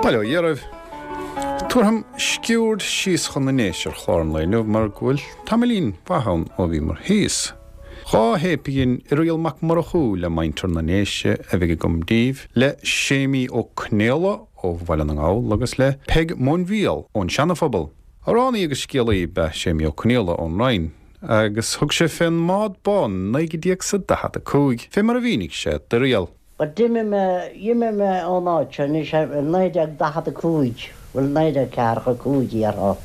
Bail ó Dhia oraibh. Tabharfam sciuird síos chun na nDéise ar chlár an lae inniu mar go bhfuil tamaillín mhaith ann ó bhíomar thíos. 2 théip a dhein Irial Mac Murchú le muintir na nDéise a bheidh agam daoibh, le Séimí Ó Conaola ó Bhaile na nGall agus le Peig Móinbhíol ón Seana-Phobal. Amhránaí agus scéalaí ab ea Séimí Ó Conaola ón Rinn agus thug sé fén mBád Bán in 1945, fé mar a mhínigh sé d'Irial. Bhuel, d'imigh mé, d'imigh mé ón áit seo anois i 1945, bhuel, 1945 déarfá,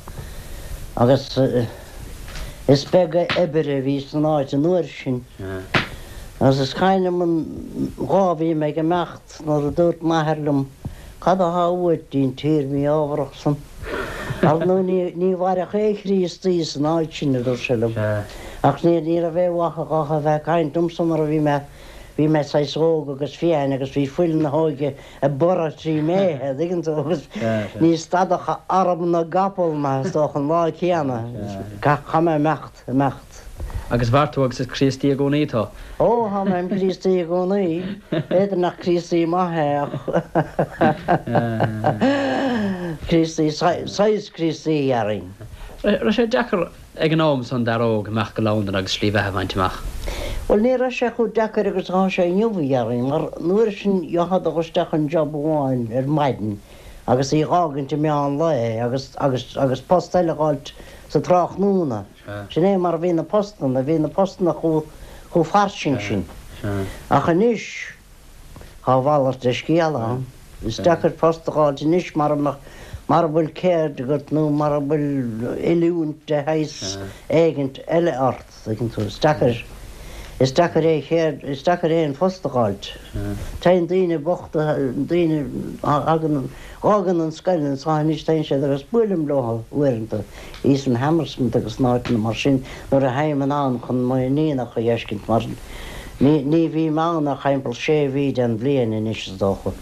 agus is beag obair a bhí san áit an uair sin. Agus is cuimhin liom an lá a bhí mé ag imeacht nuair a dúirt m'athair liom, Cad athá uait dtí'n tír mí-ámharach san? Ar ndóigh ní, ní mhairfeadh aon Chríostaí san áit sin, a dúirt sé liom. Ach ní, ní raibh aon mhaith dhó a bheith ag caint liomsa mar a bhí mé, Bhí mé saghas óg agus fiáin agus bhí fuil na hóige ag borradh trí m'fhéithe, an dtuigeann tú, agus ní stadfadh arm na gcapall mé, is dócha, an lá céanna. Chaith mé imeacht, imeacht. Agus mhair tú agus is Críostaí i gcónaí tú? Ó, tá mé im Chríostaí i gcónaí. B'fhéidir nach Críostaí maith é ach Críostaí, saghas Críostaí, dhéarfainn. Raibh sé deacair Ag an am san d'fhear óg imeacht go Londain agus slí bheatha a bhaint amach. Bhuel, ní raibh sé chomh deacair agus atá sé inniu, a dhéarfainn, mar an uair sin gheofá dul isteach chun job amháin ar maidin agus í a dh'fhágaint i meán lae agus, agus, agus post eile a dh'fháilt sa tráthnóna. Sin é mar a bhí na postanna, bhí na postanna chomh, chomh fairsing sin. Ach anois, Tá a mhalairt de scéal ann. Is deacair post a dh'fháilt anois mara mbeadh, mara bhfuil ceird agat nó mara bhfuil oiliúint de shaghas éigint eile ort, tuigeann tú. Is deacair, is deacair aon cheird, is deacair aon phost a dh'fháilt. Téann daoine bochta, daoine a thagann, dh'fhágann an scoil anso anois, téann siad agus buailim leo uaireanta. Thíos in Hammersmith agus in áiteanna mar sin nuair a théim anonn chun m'iníonacha a dh'fheiscint mar ní ní bhím ann ach thimpeall sé mhí den bhliain anois is dócha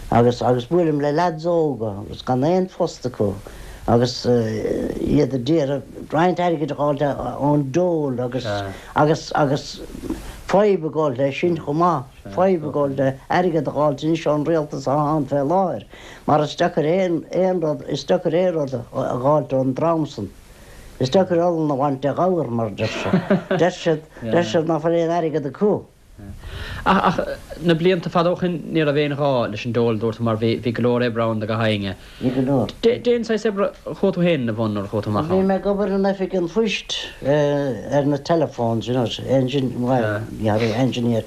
agus agus buailim le leaids óga agus gan aon phost acu agus iad a d'iarraidh roinnt airgid a dh'fháilt ón dole agus agus agus fadhb ag gabháil leis sin chomh maith. Fadhb ag gabháil le airgead a dh'fháilt anois ón rialtas atá ann fé láthair, mar is deacair aon, aon rud, is deacair aon rud a dh'fháilt ón dream san. Is deacair olann a bhaint de ghabhar, mar a deir siad. Deir siad, deir siad ná fuil aon airgead acu. Ach, ach na blianta fada ó shin ní raibh aon ghá leis an dole, dúirt tú, mar bhí, bhí go leor oibre ann do gach éinne. Bhí go leor. Cén saghas oibre a chuaigh tú féin ina bhun nuair a chuaigh tú amach Bhí ann? mé ag obair in oifig an phoist ar na telephones, you know, engine, well, engineer,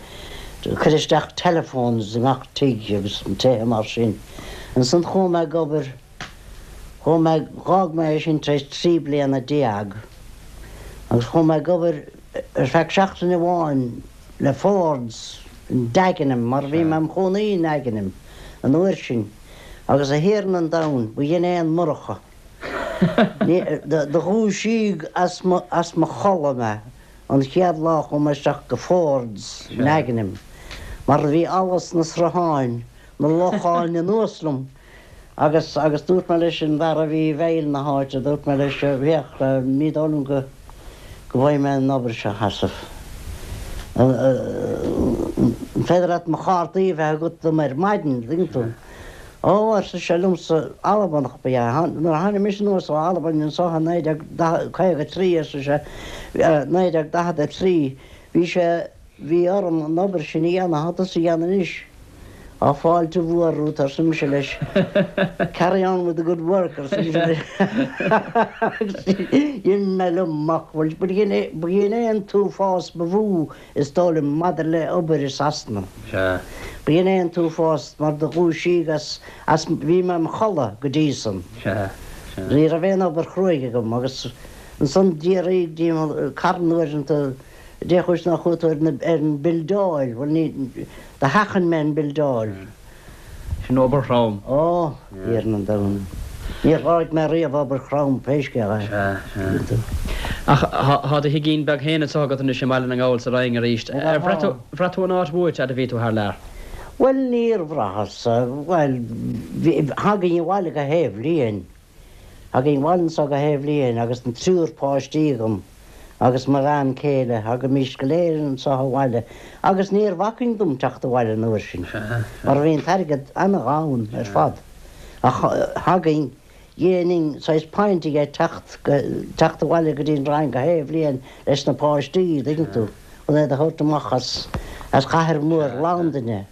cuir isteach telephones i ngach tigh agus tithe mar sin. Ansan chuaigh mé ag obair, chuaigh mé, dh'fhág mé é sin tar éis 13 bliana agus chuaigh mé ag obair ar feadh seachtain amháin le Fords in Dagenham mar bhí mé im chónaí i nDagenham an uair sin. Agus a Thiarna an domhain, ba dhin é an Murchadh. Do dhúisíodh as mo chodladh mé an chéad lá a chuaigh mé isteach go Fords i nDagenham, mar bhí allas na srutháin, na locháin anuas liom agus agus dúirt mé leis an bhfear a bhí i bhfeighil na háite, dúirt mé leis, féach, ní dóigh liom go. go bhfaighidh mé an obair seo a sheasamh. An féidir leat mo chártaí a bheith agat dom ar maidin, an dtuigeann tú? Ó, arsa sé liomsa, Albanach ba ea é. Nuair a tháinig mise anuas ó Albain anso i 1953, arsa sé, 1943, bhí sé, bhí orm an obair sin a dhéanamh, tá tusa a dhéanamh anois. Tá fáilte mhór romhat, arsa mise leis. Carry on with the good work, arsa mise leis. Agus d'imigh mé liom amach. Bhuel, b'shin é, b'shin é an t-uafás ba mhó, is dóigh liom, maidir le obair i Sasana. B'shin é an t-uafás mar do dhúisíodh as, as, bhí mé im chodladh go dtí san. Ní raibh aon obair chruaidh agam agus ansan d'fhiafraíodh díom carn uaireanta, Dé chúis nár chuaigh tú ar an mbildeáil? Bhuel, ní, do sheachain mé an bhildeáil. Sin obair throm. Ó, Thiarna an domhain. Níor sháraigh mé riamh obair throm, pé scéal é. Sea, sea. Ach thá do thigín beag féin anso agat anois i mBaile na nGall sa Rinn arís. Ar bhraith tú, bhraith tú an áit uait fhad a bhí tú thar lear? Bhuel, níor bhraitheas. Bhuel, bhí, thagainn abhaile gach aon bhliain. Thagainn abhaile anso gach aon bhliain agus an triúr páistí agam agus mo bhean céile, thagaimís go léir anso abhaile agus níor bhacainn dom teacht abhaile an uair sin mar bhí an t-airgead ana-ghann ar fad. Ach thagainn, dhéanainn saghas point dhe teacht go, teacht abhaile go dtí an Rinn gach aon bhliain leis na páistí, an dtuigeann tú, chun iad a thabhairt amach as, as chathair mhór Londain.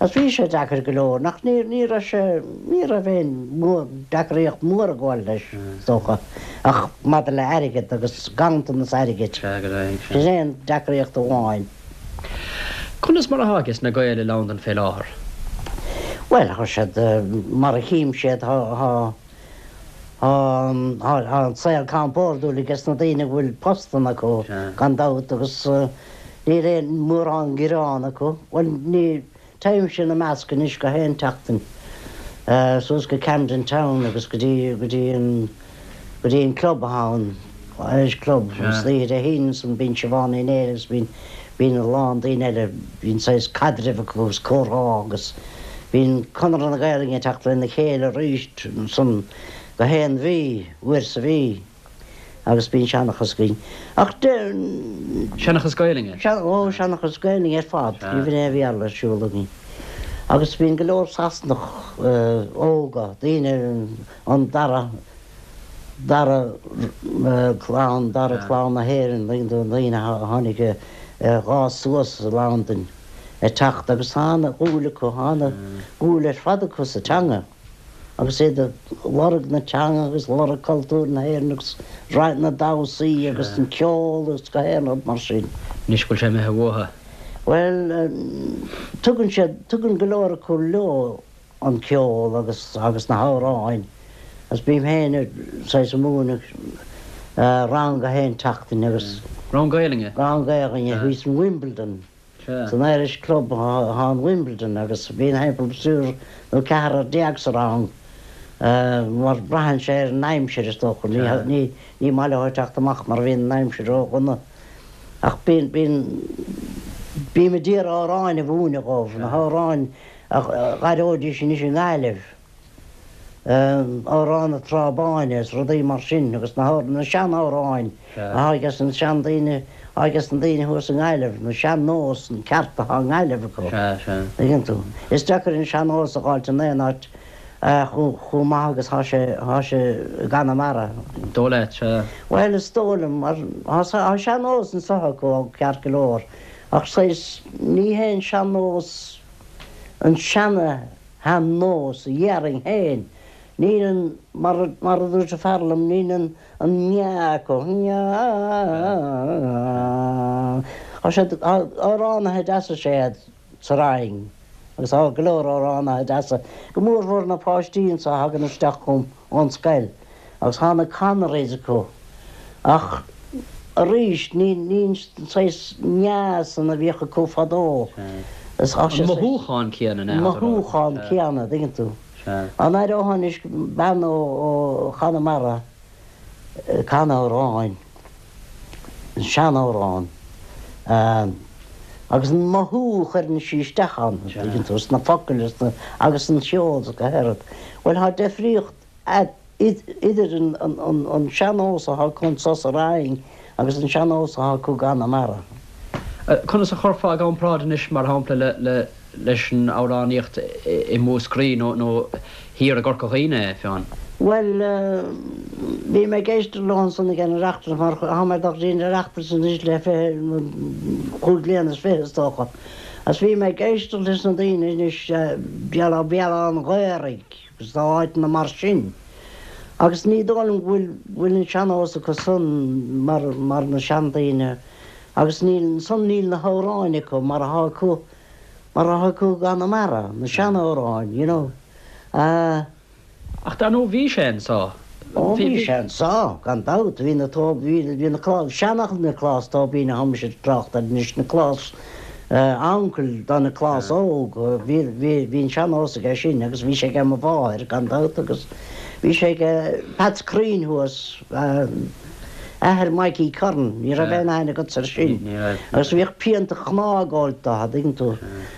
Agus bhí sé deacair go leor, nach, ní, ní raibh sé, ní raibh aon mhór, deacraíocht mhór ag gabháil leis, is dócha, ach maidir le airgead agus ganntanas airgid. Sin é an deacraíocht amháin. Conas mar atá ages na Gaeil i Londain fé láthair? Bhuel, tá siad, mar a chím siad, tá, tá, tá, tá an saol compordúil ages na daoine go bhfuil postanna acu, gan dabht, agus níl aon mórán gearán acu. Bhuel, ní, Téimse ina measc anois gach aon tseachtain, suas go Camden Town agus go dtí, go dtí an, go dtí an club atá ann, Irish Club, agus oíche Dé hAoine ansan bíonn Siobhán Ní Néill agus bíonn, bíonn a lán daoine eile, bíonn saghas caidreamh acu agus comhrá agus bíonn Conradh na Gaelainne ag teacht lena chéile arís ansan gach aon mhí, uair sa mhí. Agus bíonn seanchas againn. Ach de. Seanchas Gaelainne? Ó, seanchas Gaelainne ar fad. Ní bhíonn aon Bhéarla ar siúl againn. Agus bíonn go leor Sasanach óga, daoine an dara, dara clann, dara clann na hÉireann, daoine a tháinig a dh'fhás suas i Londain ag teacht agus tá ana-dhúil acu, tá ana-dhúil ar fad acu sa teanga. agus iad ag lorg na teanga agus lorg cultúr na hÉireann agus na damhsaí agus an ceol agus gach aon rud mar sin. Anois go bhfuil sé imithe uathu. Bhuel, tugann siad, tugann go leor acu leo an ceol agus, agus na hamhráin agus bím féin saghas ag múineadh rang gach aon tseachtain agus. Rang Gaelainne? Rang Gaelainne thíos in Wimbledon. San Irish Club atá in Wimbledon agus bíonn thimpeall triúr nó ceathrar déag sa rang mar braitheann sé ar an aimsir is dócha. Ní ní maith leo teacht amach mar bhíonn an aimsir ró-dhona. Ach bíonn bíonn bím ag iarraidh amhráin a mhúineadh dhóibh, na hamhráin a dh'aireoidís anois i nGaillimh. Amhrán na Trá Báine is rudaí mar sin agus na na sean-amhráin atá ages na seandaoine atá ages na daoine thuas i nGaillimh, na sean-nós an ceart atá i nGaillimh acu. Tuigeann tú. Is deacair an sean-nós a dh'fháilt in aon áit chomh chomh maith agus thá sé thá sé i gConamara. Dóigh leat, sea. Bhuel is dóigh liom mar thá thá sean-nós anso acu ceart go leor ach saghas ní hé an sean-nós an seana shean-nós a dhéarfainn féin. Níl an, mar mar a dúirt an fear liom, níl an an meá acu. Tá siad, tá amhránaithe deasa is ea iad sa Rinn agus tá go leor amhránaithe deasa, go mórmhór na páistí anso a thagann isteach chugam ón scoil. Agus tá na Connerys acu. Ach arís, ní an saghas meá san a bhíodh acu fadó. An mothúchán céanna, an mothúchán céanna, an dtuigeann tú. Dá n-aireofá anois bean ó Chonamara ag canadh amhráin, an seanamhrán, agus an mothú a chuireann sí isteach ann, an dtuigeann tú, sna focail agus an cheol is gach aon rud. Bhuel, tá deifríocht idir an sean-nós atá acu anso sa Rinn agus an sean-nós atá acu i gConamara. Conas a chuirfeá i gcomparáid anois, mar shampla, leis an amhránaíocht i Múscraí nó thiar i gCorca Dhuibhne é, Fionn? Bhuel, bhí mé ag éisteacht leo ansan ag an Oireachtas mar tá mé ag dul go dtí an Oireachtas anois le 25 bliana is dócha. Agus bhí mé ag éisteacht leis na daoine anois, Béal Átha an Ghaorthaidh, agus tá áiteanna mar sin. Agus ní dóigh liom go bhfuil bhfuil an sean-nós acu san mar mar na seandaoine agus níl san níl na hamhráin acu mar atá acu mar atá acu i gConamara, na seanamhráin, you know. Ah. Ach dar ndóigh bhí sé anso. Ó bhí sé anso, gan dabht, bhí na tó bhí bhí na clás seanfhocal Nioclás Tóibín a thá mise ag trácht air anois Nioclás Uncail do Nioclás Óg, bhí, bhí, bhí an sean-nós aige sin agus bhí sé aige mo mháthair, gan dabht, agus bhí sé aige Peats Cruinn thuas, athair Mikey Curran, ní raibh aon aithne agatsa air sin, agus bhíodh pionta chnámh ag ól dó, an dtuigeann tú,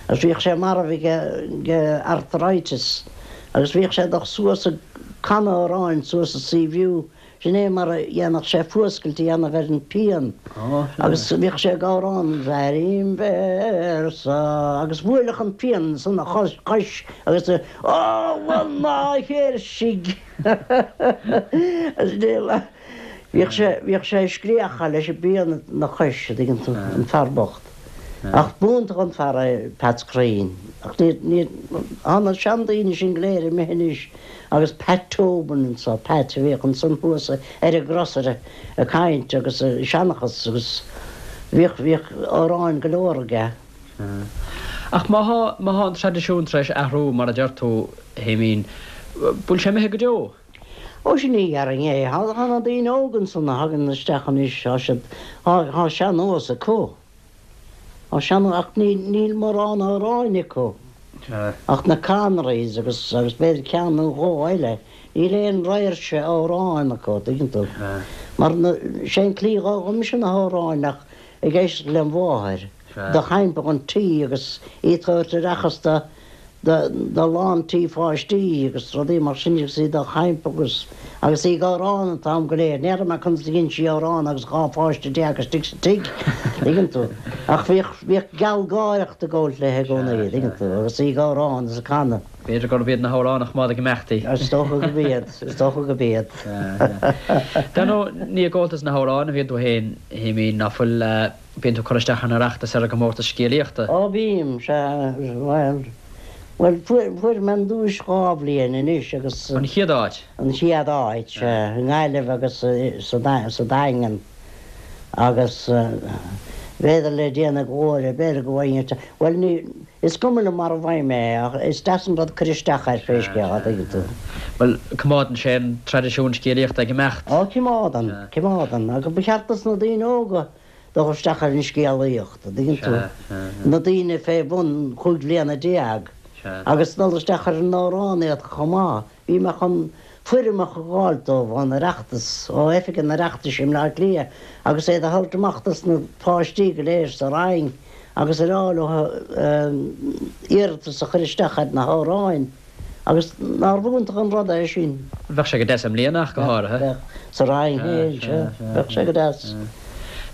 agus bhíodh sé marbh aige, aige arthritis, agus bhíodh sé ag dul suas ag canadh amhráin suas i Sea View. Sin é mar a dhéanfadh sé fuascailt a dhéanamh ar an bpian agus bhíodh sé ag amhrán Airím véarsa agus bhuailfeadh an pian san a chois agus Ola na chéirsigh Bhíodh sé, bhíodh sé ag scréachadh leis an bpian ina chois, a dtuigeann tú, an fear bocht. Ach b'iontach an fear é Peats Crean. Ach ní, ní, tá na seandaoine sin go léir imithe anois agus Pat Tobin anso, Pat a bhíodh ansan thuas ar an gcrosaire ag caint agus ag seanchas agus bhíodh, bhíodh amhráin go leor aige. Ach má thá, má thá an traidisiún tar éis athrú mar a deir tú, a Shéimín, bhfuil sé imithe go deo? Ó sin ní dhéarfainn é. Tá na daoine óga ansan a thagann isteach anois, tá siad, tá sean-nós acu. Tá sean, ach níl mórán amhráin acu. Ach na Conrys agus, agus b'fhéidir ceann nó dhó eile. Níl aon réimse amhráin acu, tuigeann tú. Mar na, sé an tslí a d'fhoghlaim mise na hamhráin ach ag éisteacht lem mháthair, do thaimpeadh an tí agus í ag tabhairt oireachas do, do lán tí pháistí agus rudaí mar sin agus í do chaimpeadh agus agus í ag amhrán an t-am go léir. N'fheadar mé conas a dhein sí amhrán agus 12 pháiste istigh sa tigh, tuigeann tú. Ach bhíodh, bhíodh gealgháireacht ag gabhailt léi i gcónaí, tuigeann tú, agus í ag amhrán is ag canadh. B'fhéidir gurb iad na hamhráin a choimeád ag imeacht í. Is dócha gurb iad, is dócha gurb iad. Dar ndóigh, ní i gComhaltas na hAmhrán a bhíonn tú féin, a Shéimín, ná fuil? Bíonn tú ag cur isteach ar an Oireachtas, ar an gcomórtas scéalaíochta. Ó bím, sea, bhuel, bhuel, fuair, fuair mé an duais dhá bhliain anois agus. An chéad áit? An chéad áit, sea, i nGaillimh agus sa, sa Daingean agus b'fhéidir le déanaí go leor, b'fhéidir go bhfaighinn, bhuel ní, is cuma liom mar a bhfaighim é ach is deas an rud cur isteach air pé scéal é, tuigeann tú. Bhuel, coimeádann sé an traidisiún scéalaíochta ag imeacht. Ó, coimeádann, coimeádann, agus ba cheart dos na daoine óga dul isteach ar an scéalaíocht, an dtuigeann tú, na daoine fé bhun chúig bhliana déag, agus dul isteach ar an amhránaíocht chomh maith. Bhí mé chun foirmeacha a dh'fháilt dóibh ón Oireachtas, ó Oifig an Oireachtais i mBleá Cliath, agus iad a thabhairt amach dos na páistí go léir sa rang agus a rá leo iarratas a chur isteach ar na hamhráin. Agus nárbh iontach an rud é sin? Bheadh sé go deas i mbliana ach go háirithe. Bheadh. Sa rang féin, sea. Bheadh sé go deas.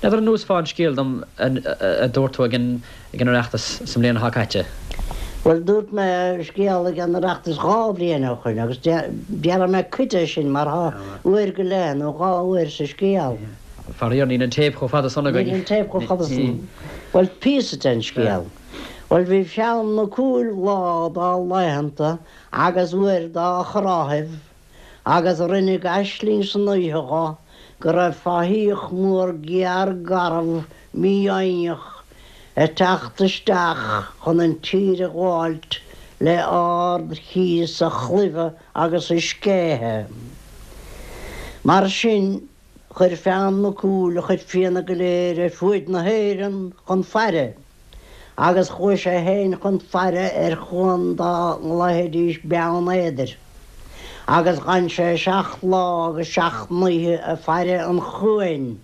N'fheadar an neosfá an scéal dom a dúirt tú ag an Oireachtas sa mbliain atá caite? Bhuel, dúirt mé scéal ag an Oireachtas dhá bhliain ó shoin agus déarfaidh mé cuid de sin mar thá uair go leith nó dhá uair sa scéal. Faraor, níl an téip chomh fada san againn. Níl an téip chomh fada san. Bhuel, píosa den scéal. Bhuel, bhí Fionn Mac Cumhaill lá dá laethanta agus uair dá thráthaibh agus rinneadh aisling san oíche dho go raibh fathaíoch mór géar garbh mífhoighneach ag teacht isteach chun an tír a ghabháilt le ard-chíos a chlaimhe agus a scéithe. Mar sin, chuir Fionn Mac Cumhaill a chuid fianna go léir ar fuaid na hÉireann chun faire. Agus chuaigh sé féin chun faire ar chuan dá nglaofaidís Beann Éadair. Agus dh'fhan sé seacht lá agus seacht n-oíche ag faire an chuain.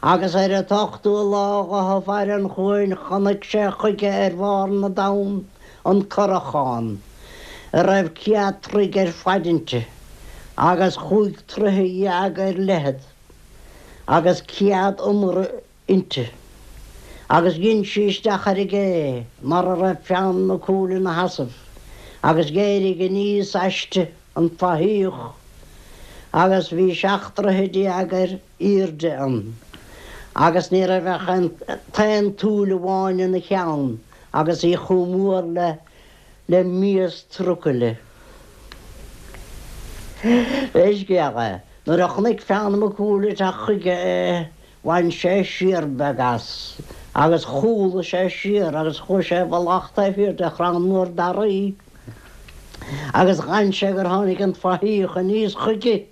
Agus ar an t-ochtú lá dho ag faire an chuain chonaic sé chuige ar bharr na dtonn an curachán, a raibh céad troigh ar faid inti, agus chúig troighe dhéag ar leithead, agus céad iomaire inti. Agus dhein sí isteach ar an gcé mar a raibh Fionn Mac Cumhaill ina sheasamh, agus dh'éirigh aníos aisti an fathaíoch, agus bhí seacht dtroithe déag ar aoirde ann, agus ní raibh ach an t-aon tsúil amháin ina cheann, agus í chomh mór le le mias trucaile. Pé scéal é, nuair a chonaic Fionn Mac Cumhaill ag teacht chuige é, Bhain sé siar beag as, agus chúlaigh sé siar agus chuaigh sé i bhfolach taobh thiar de chrann mór daraí, agus dh'fhan sé gur tháinig an fathaíoch aníos chuige,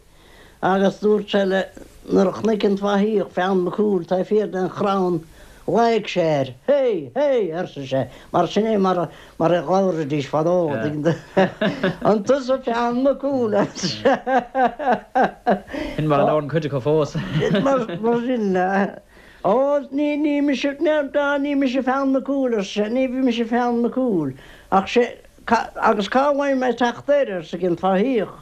agus dúirt sé le, nuair a chonaic an fathaíoch Fionn Mac Cumhaill taobh thiar den chrann, ghlaoigh sé air, Hé! Hé! arsa sé, mar sin é mar a, mar a labhraidís fadó, An tusa Fionn Mac Cumhaill, arsa sé. Sin mar a labhrann cuid acu fós. Mar sin, Ó, ní, ní mise, ní mise Fionn Mac Cumhaill, arsa sé, ní mise Fionn Mac Cumhaill. Ach sé, agus cá bhfaighidh mé teacht air, arsa an fathaíoch.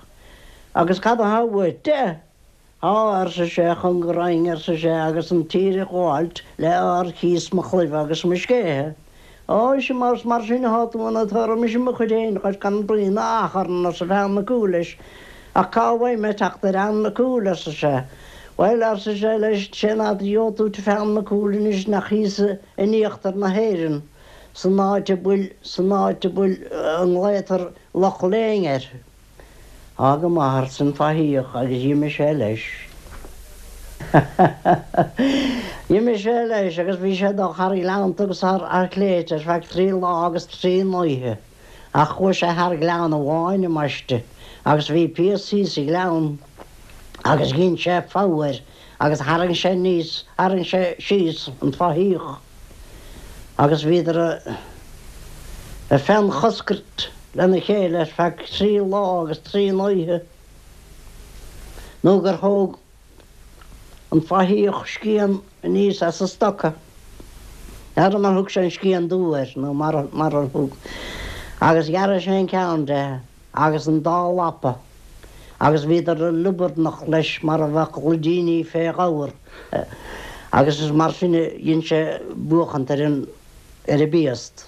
Agus cad atá uait de? Tá, arsa sé, chun go raghainn, arsa sé, agus an tír a ghabháilt le ár chíos mo chlaimhe agus mo scéithe. Ó, ise más mar sin athá tú ann, tabharfaidh mise mo chuid fhéin dhuit gan braon achrann, arsa Feann Mac Cumhaill leis. Ach cá bhfaighidh mé teacht ar Fheann Mac Cumhaill, arsa sé. Bhuel, arsa sé leis, sén áit a gheobhaidh tú Feann Mac Cumhaill anois nach thíos in íochtar na hÉireann, san áit a bhfuil, san áit a bhfuil, a nglaotar Loch Léin air. Á go maith, arsa an fathaíoch agus dh'imigh sé leis. D'imigh sé leis agus bhí sé ag dul thar ghleannta agus thar shléibhte ar feadh trí lá agus trí n-oíche. Ach chuaigh sé thar ghleann amháin ambaiste agus bhí piast thíos sa ghleann agus dhein sé fogha air agus tharraing sé aníos, tharraing sé síos an fathaíoch agus bhíodar ag feannchoscairt lena chéile ar feadh trí lá agus trí n-oíche nó gur thóg an fathaíoch scian aníos as a stoca. N'fheadar mar thug sé an scian dubh air nó mar ar thug agus ghearraigh sé an ceann de agus an dá lapa agus bhíodar ag liobarnach leis mar a bheadh luidíní fé ghabhar agus is mar sin a dhein sé buachant ar an ar an bpiast.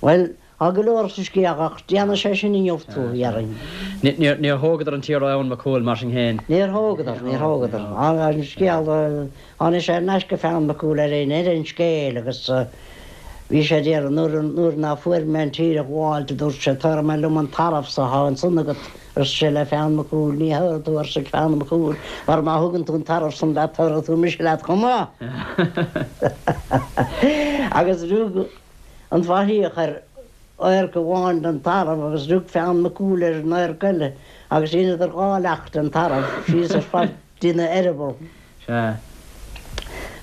Bhuel, tá go leor sa scéal ach déanfaidh sé sin inniu tú, dhéarfainn. Níor thógadar an tír ó Fhionn Mac Cumhaill mar sin féin. Níor thógadar, níor thógadar. An scéal, tháinig sé ar n-ais go Fionn Mac Cumhaill ar aon ar an scéal agus bhí sé ag iarraidh, nuair, nuair ná fuair mé an tír a ghabháilt, a dúirt sé, tabharfaidh mé liom an tarbh so athá ansan agat, arsa sé le Fionn Mac Cumhaill, ní thabharfaidh tú, arsa Fionn Mac Cumhaill, mar má thugann tú an tarbh san leat, tabharfaidh tú mise leat chomh maith. Agus rug an fathaíoch ar adharc amháin den tarbh agus rug Fionn Mac Cumhaill ar an adharc eile agus dheineadar dhá leacht den tarbh síos ar fad dtína eireaball. Sea.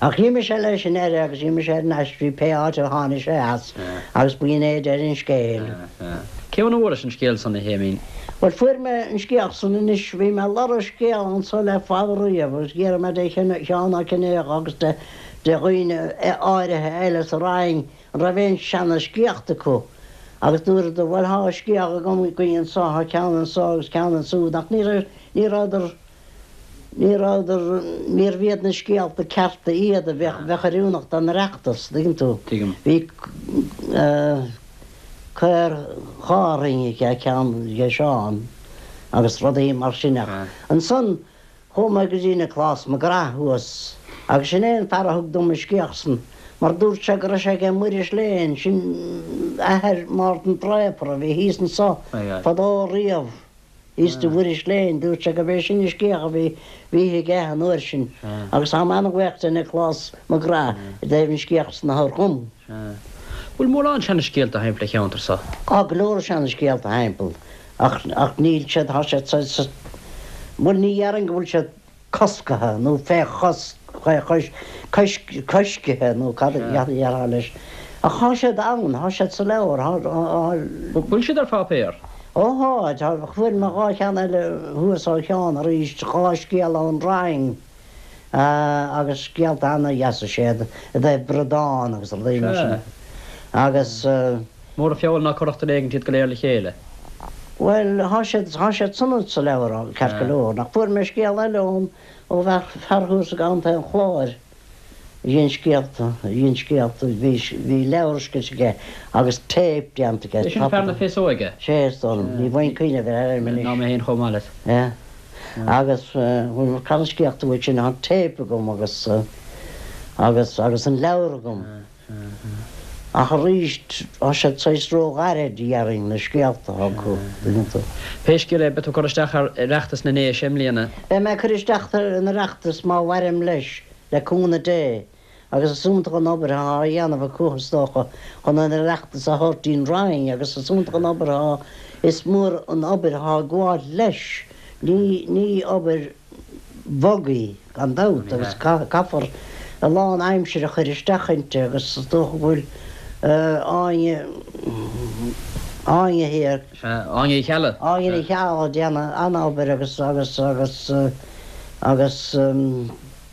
Ach dh'imigh sé leis i ndeireadh agus dh'imigh sé ar n-ais dtí pé áit a tháinig sé as agus b'in é deireadh an scéil. Sea, sea. Cé óna bhfuairis an scéal san, a Shéimín? Bhuel, fuair mé an scéal san anois, bhí mé ag lorg scéal anso le fada riamh agus dh'iarr mé de Sheán Ó Cinnéide agus de dhaoine áirithe eile sa Rinn an raibh aon seana scéalta acu agus dúradar, bhuel, thá scéal agam againn anso, thá ceann anso agus ceann ansúd ach ní raibh, ní rabhadar, Ní rabhadar, níorbh iad na scéalta cearta iad a bheadh, bheadh oiriúnach don Oireachtas, tuigeann tú. Tuigim. Bhí caor Chárthaigh aige, ceann aige Seán agus rudaí mar sin ach ansan chuaigh mé go dtí Nioclás Mac Graith thuas agus sin é an fear a thug dom an scéal san mar dúirt sé go raibh sé aige Muiris Léan, sin athair Mhártan Draper a bhí thíos anso fadó riamh. Thíos do Mhuiris Léan, dúirt sé gurb é sin an scéal a bhí bhí aige an uair sin agus táim an-bhuíoch de Nioclás Mac Graith i dtaobh an scéal san a thabhairt dhom. Sea. Bhfuil mórán seana-scéalta thimpeall an cheantair so? Tá go leor seana-scéalta thimpeall ach ach níl siad, tá siad sa, sa, bhuel ní dhéarfainn go bhfuil siad coscaithe nó fé chosc, fé chois, coisc, coiscithe nó cad a dhéarfá leis. Ach thá siad ann, thá siad sa leabhar, thá, thá. Bhfuil siad ar pháipéar? Ó thá, tá, fuair mé dhá cheann eile thuas ó Sheán arís, dhá scéal ón Rinn, agus scéalta ana-dheasa is ea iad, i dtaobh bradán agus rudaí mar sin. Agus. Mór an feall ná cuirfeadh duine éigint iad go léir le chéile. Bhuel, thá siad, thá siad san sa leabhar, ceart go leor. Ach fuair mé scéal eile ón, ó bhfear, fear thuas i gContae an Chláir a dhein scéalta, a dhein scéalta, bhí, bhí leabhar scríte aige agus téip déanta aige. É sin fear na féasóige? Sé, is dóigh liom. Ní bhfaighinn cuimhneamh ar a ainm anois. Ná mé féin chomh maith leat. Yeah. Agus, bhuel, cad an scéalta uait sin, thá an téip agam agus, agus, agus an leabhar agam. Ach arís, tá siad saghas ró-ghairid, dhéarfainn, na scéalta atá acu, tuigeann tú. Pé scéal é, beidh tú ag cur isteach ar Oireachtas na nDéise i mbliana. Beidh mé ag cur isteach ar an Oireachtas má mhairim leis, le cúnamh Dé, agus is iontach an obair atá á dhéanamh acu, is dócha, chun an Oireachtas a thabhairt dtí'n Rinn, agus is iontach an obair atá, is mór an obair atá ag gabháil leis. Ní, ní obair. bhog í, gan dabht, agus caithfear a lán aimsire a chur isteach inti agus is dócha go bhfuil Áine, Áine thiar. Sea, Áine Uí Cheallaigh. Áine Ní Cheallaigh ag déanamh an-obair agus, agus, agus, agus.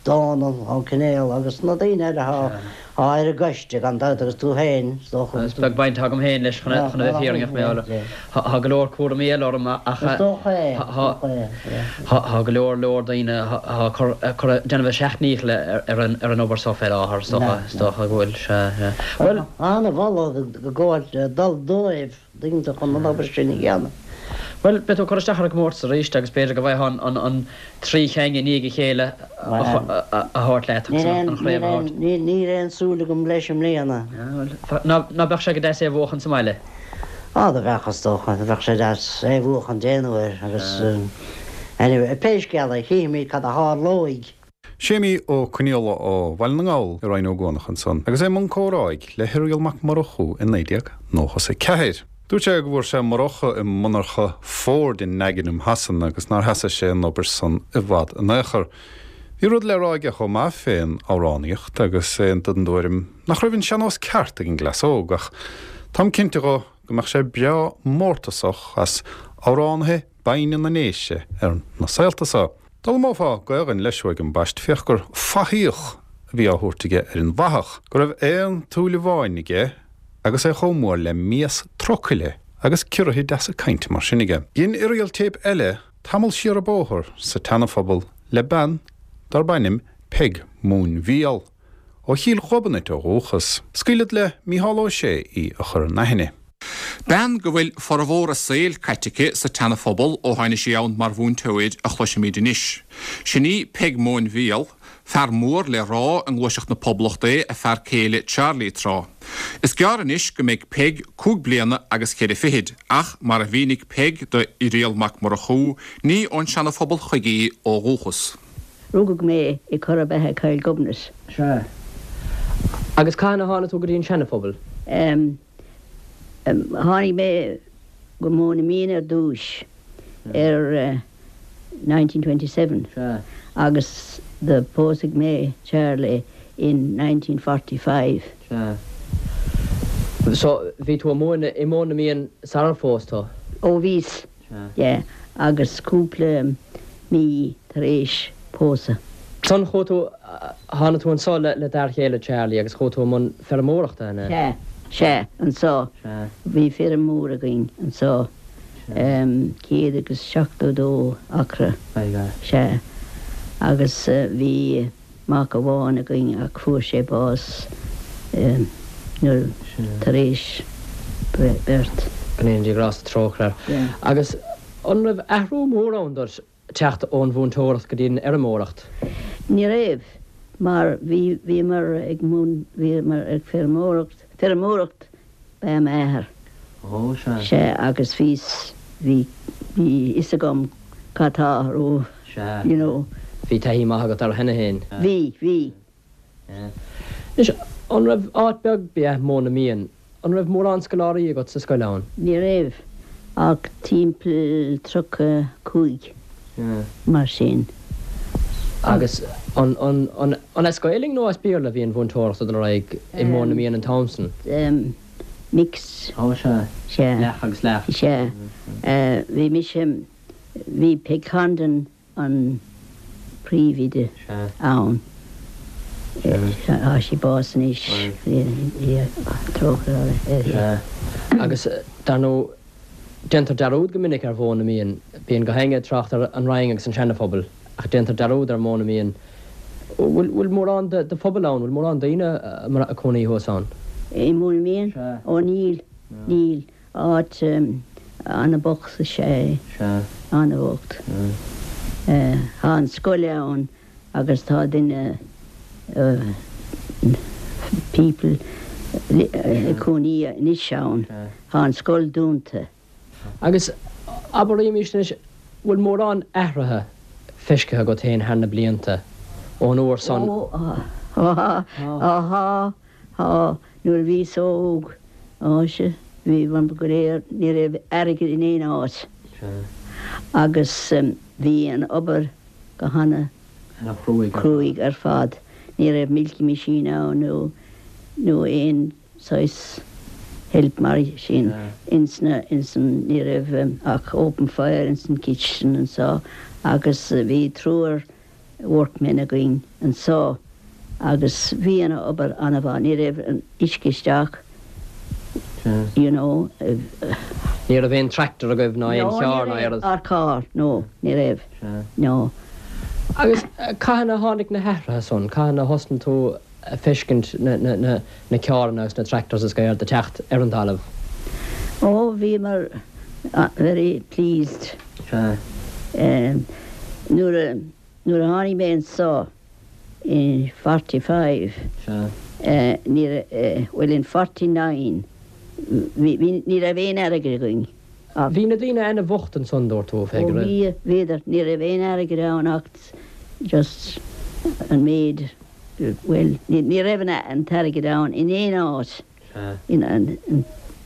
Dónal Ó Conaola agus na daoine eile atá ar an gcoiste gan dabht agus tú féin is dócha. Is beag baint atá agam féin leis chun a bheith fírinneach mar tá go leor cúraimí eile orm ach Is dócha é, is dócha é, yeah. Tá go leor leor daoine atá ag cur déanamh a seacht ndícheall ar an obair so fé láthair is dócha, is dócha go bhfuil, sea, sea. Bhuel. An-mholadh ag gabháil dul dóibh. daoine chun an obair sin a dhéanamh. Bhuel, beidh tú ag cur isteach ar an gcomórtas arís agus b'fhéidir go bhfaighfeá an tri cheann i ndiaidh a chéile a thabhairt leat agus an chraobh a thabhairt. Níl aon súil agam leis i mbliana. Bhuel, ná beadh sé go deas é a bhuachan sa mbaile? Á, do bheadh, is dócha. Do bheadh sé deas é a bhuachan aon uair agus anyway, pé scéal é, chífimid cad a tharlóidh. Séimí Ó Conaola ó Bhaile na nGall i Rinn Ó gCuanach ansan agus é i mbun comhráidh le hIrial Mac Murchú i 1994. Dúirt sé go bhfuair sé murachadh i monarcha Ford i nDagenham Shasana agus nár sheasaigh sé an obair san i bhfad in aon chor. Bhí rud le rá aige chomh maith fén amhránaíocht agus é den dtuairim nach raibh an sean-nós ceart ag an gcleas óg ach táim cinnte dho go mbeadh sé breá mórtasach as amhránaithe binne na nDéise ar na saolta so. D'fhoghlaimeofá Gaelainn leis uaidh ambaist féach gur fathaíoch a bhí á thabhairt aige ar an bhfathach, go raibh aon tsúil amháin aige agus é chomh mór le mias trucaile agus ciorruithe deasa cainte mar sin aige. Dhein Irial téip eile tamall siar an bóthar sa tSeanaphobal le bean darb ainm Peig Móinbhíol. Ó Chill Ghobnait ó dhúchas. Scaoilfead le Mícheál Ó Sé í a chur in aithne. Bean go bhfuil formhór a saoil caite aici sa tSeana-Phobal ó tháinig sí ann mar mhúinteoir a chloisfimid anois. Sin í Peig Móinbhíol. Fear mór le rá i ngluaiseacht na Poblachta é a fear céile Charlie tráth. Is gearr anois go mbeidh Peig cúig bliana agus cheithre fichid ach mar a mhínigh Peig do Irial Mac Murchú, ní ón Seana-Phobal chuige í ó dhúchas. Rugadh mé i Corra Beatha Coill Ghobnait. Sea. Agus cathain a tháinig tú go dtí an Seana-Phobal? Em. Tháinig mé go Móin na Míon ar dtúis ar 1927. Sea. Agus do pósadh mé Charlie in 1945. Sea. So, bhí tú ag múineadh i Móin na Míon sarar phós tú? Ó bhíos. Yeah, agus cúpla mí tar éis pósadh. Ansan chuaigh tú, tháinig tú anso le d'fhear chéile Charlie agus chuaigh tú i mbun feirmeoireachta, an ea? Sea, sea, anso. Sea. Bhí feirm mhór againn anso, 172 acra. Sea. Agus bhí. Mac amháin againn ach fuair sé bás nuair tar éis birth. Go ndéana Dia grásta trócaire air. Agus an raibh athrú mór ann duit teacht ón mhúinteoireacht go dtí an fheirmeoireacht? Ní raibh, mar bhí bhíomar ag bhíomar ag feirmeoireacht, feirmeoireacht ba ea m'athair. Ó, sea. Sea, agus bhíos, bhí, bhí fhios agam cad tá ró, Sea. you know. Bhí taithí maith agat air cheana féin. Bhí, bhí. Sea. Anois, an raibh, áit beag ba ea Móin na Míon, an raibh mórán scoláirí agat sa scoil ann? Ní raibh ach timpeall 35. mar sin. Agus an an as Gaelainn nó as Béarla a bhí an mhúinteoireacht ag dul ar aghaidh i Móin na Míon an t-am san? Mix. Ó sea. Sea. Leath agus leath. Sea. Bhí mise, bhí Peg Condon an príomhoide ann. Tá sí bás anois. Trócaire uirthi. Sea. Agus dar ndóigh Déantar dearúd go minic ar Mhóin na Míon. Bíonn gach éinne ag trácht ar an Rinn agus an Seana-Phobal, ach déantar dearúd ar Mhóin na Míon. Bhfuil bhfuil mórán de de phobal ann? Bhfuil mórán daoine ag cónaí thuas ann? I Móin na Míon? Sea. Ó níl, níl. Áit ana-bhocht is ea é. Sea. Ana-bhocht. Tá an scoil ann agus tá duine, people, ag cónaí anois ann. Tá an scoil dúnta. Agus abraimis anois, bhfuil mórán athraithe feiscithe agat féin thar na blianta, ón uair san? Ó, tá, tá, tá. Nuair a bhíos óg, á sea, bhí, go léir, ní raibh airgead in aon áit. Agus bhí an obair go hana chruaidh ar fad. Ní raibh milking machine ann nó nó aon saghas help mar sin ins na ins an ní raibh ach open fire ins an kitchen anso agus bhí triúr. workmen againn anso agus bhí an obair an-mhaith, ní raibh an uisce isteach you know. Ní raibh aon tractor agaibh ná aon charr ná aon rud? No, ní raibh, car, no, ní raibh, no. Agus cathain a tháinig na hathruithe san, cathain a thosnaigh tú a feiscint na carranna agus na tractors is gach rud ag teacht ar an talamh? Ó, bhíomar very pleased. Nuair a, nuair a tháinig mé anso in 45, ní raibh, bhuel in 49, bhí, bhí, ní raibh aon airgead againn ach. Bhí na daoine ana-bhocht ansan, dúirt tú, a Pheig, Ó bhí, bhíodar, ní raibh aon airgead ann ach just an méid, bhuel, ní raibh an t-airgead ann in aon áit.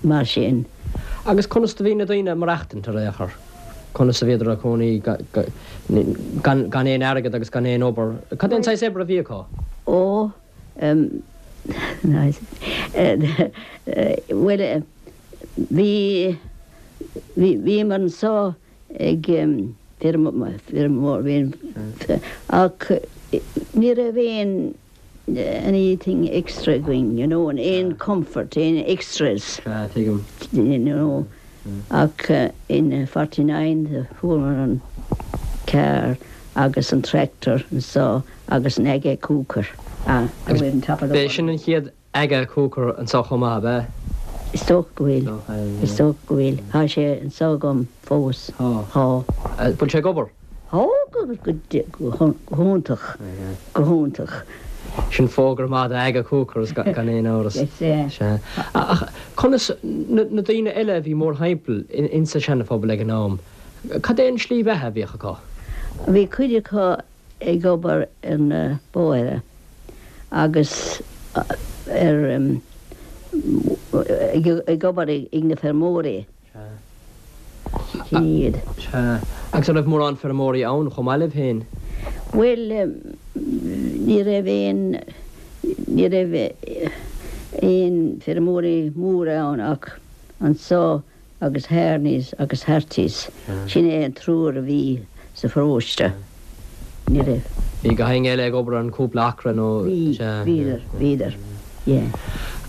Mar sin. Agus conas do bhí na daoine ag maireachtaint ar aon chor? Conas a bhíodar ag cónaí gan aon airgead agus gan aon obair? Cad é an saghas oibre a bhí acu? Ó, bhuel, bhí, bhíomar anso ag feirmeoir, ach ní raibh aon anything extra againn, you know, aon comfort, aon extras, Sea, tuigim. you know, ach in 49 fuaireamar an carr agus an tractor anso agus an Aga cooker. Ah, Agus b'é sin an chéad Aga cooker anso chomh maith, ab ea? Is dócha go bhfuil, is dócha go bhfuil. Tá sé anso agam fós. Tá. Tá. Bhfuil sé ag obair? Tá, go hiontach, go hiontach. Sin fógra maith do Aga Cookers gan aon amhras. Sea. Ach conas na daoine eile a bhí mórthimpeall insa Seana-Phobal ag an am, cad é an slí bheatha a bhíodh acu? Bhí cuid acu ag obair ar na bóithre agus ar, ag obair ag na feirmeoirí. Sin iad. Sea. Agus an raibh mórán feirmeoirí ann chomh maith libh féin? Bhuel, ní raibh aon, ní raibh aon feirmeoirí móra ann ach anso agus Harneys agus Hartys. Sin é an triúr a bhí sa pharóiste. Ní raibh. Bhí gach éinne eile ag obair ar an cúpla acra nó? Bhí, bhíodar, bhíodar, yeah.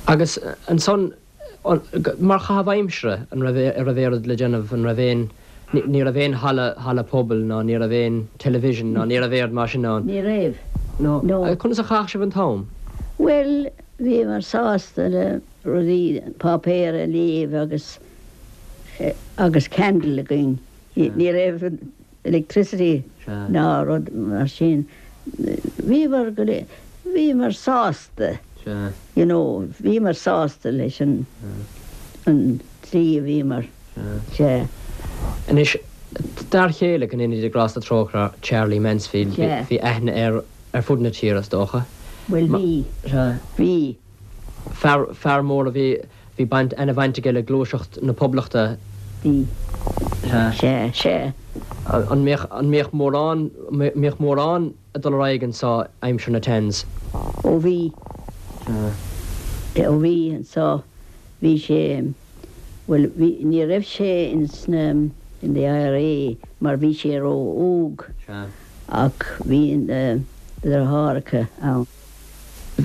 Agus ansan, Mar chaitheamh aimsire, an raibh, an raibh aon rud le déanamh, an raibh aon, ní raibh aon halla, halla pobail ná ní raibh aon television ná ní raibh aon rud mar sin ann? Ní raibh, no. Conas a chaitheadh sibh an t-am? Bhuel, bhíomar sásta le rudaí, páipéar a léamh agus, agus candle againn. Ní raibh electricity ná rud mar sin. Bhíomar go léir, bhíomar sásta, you know, bhíomar sásta leis an an tslí a bhíomar, sea. Anois, d'fhear chéile, go ndéana Dia grásta trócaire, Charlie Mansfield, bhí aithne air ar fud na tíre, is dócha. Bhuel, bhí, bhí. Fear, fear mór a bhí, bhí baint, ana-bhaint aige le gluaiseacht na Poblachta. Bhí. Sea, sea. An mbíodh, an mbíodh mórán, mbíodh mórán ag dul ar aghaidh anso aimsir na Tans? Ó bhí. Sea. Ó bhí anso, bhí sé, bhuel, bhí, ní raibh sé ins na, in the IRA mar bhí sé ró-óg. Sea. Ach bhí na deartháireacha ann.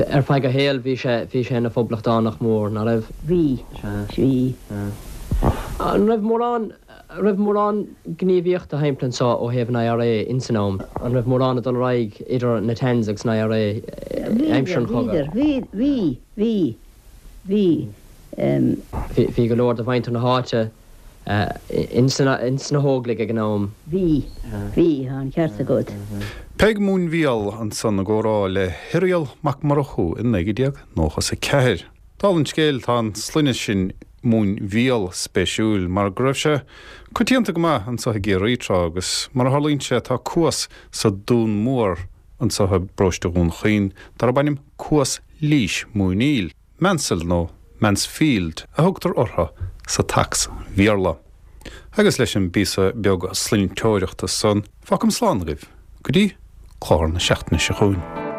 Ar feadh a shaoil bhí sé, bhí sé ina phoblachtánach mór, ná raibh? Bhí. Bhí. An raibh mórán, raibh mórán gníomhaíochta thimpeall anso ó thaobh an IRA ins an am? An raibh mórán ag dul ar aghaidh idir na Tans agus an IRA aimsir an chogaidh? Bhí, bhí, bhí, bhí, bhí. Bhí go leor de mhuintir na háite Ins na hÓglaigh ag an am. Bhí. Bhí, tá an ceart agat. Peig Móinbhíol ansan i gcomhrá le hIrial Mac Murchú i 1994. Dála an scéil, tá an sloinne sin Móinbhíol spéisiúil mar go raibh sé coitianta go maith anso i gCiarraí tráth agus mar a tharlaíonn sé tá cuas sa Dún Mór anso i bparóiste Dhún Chaoin darb ainm Cuas Lís Móiníl. Mansell nó Mansfield a thugtar orthu sa tSacs-Bhéarla. Agus leis an bpíosa beag sloinnteoireachta san, fágaim slán agaibh go dtí clár na seachtaine seo chugainn.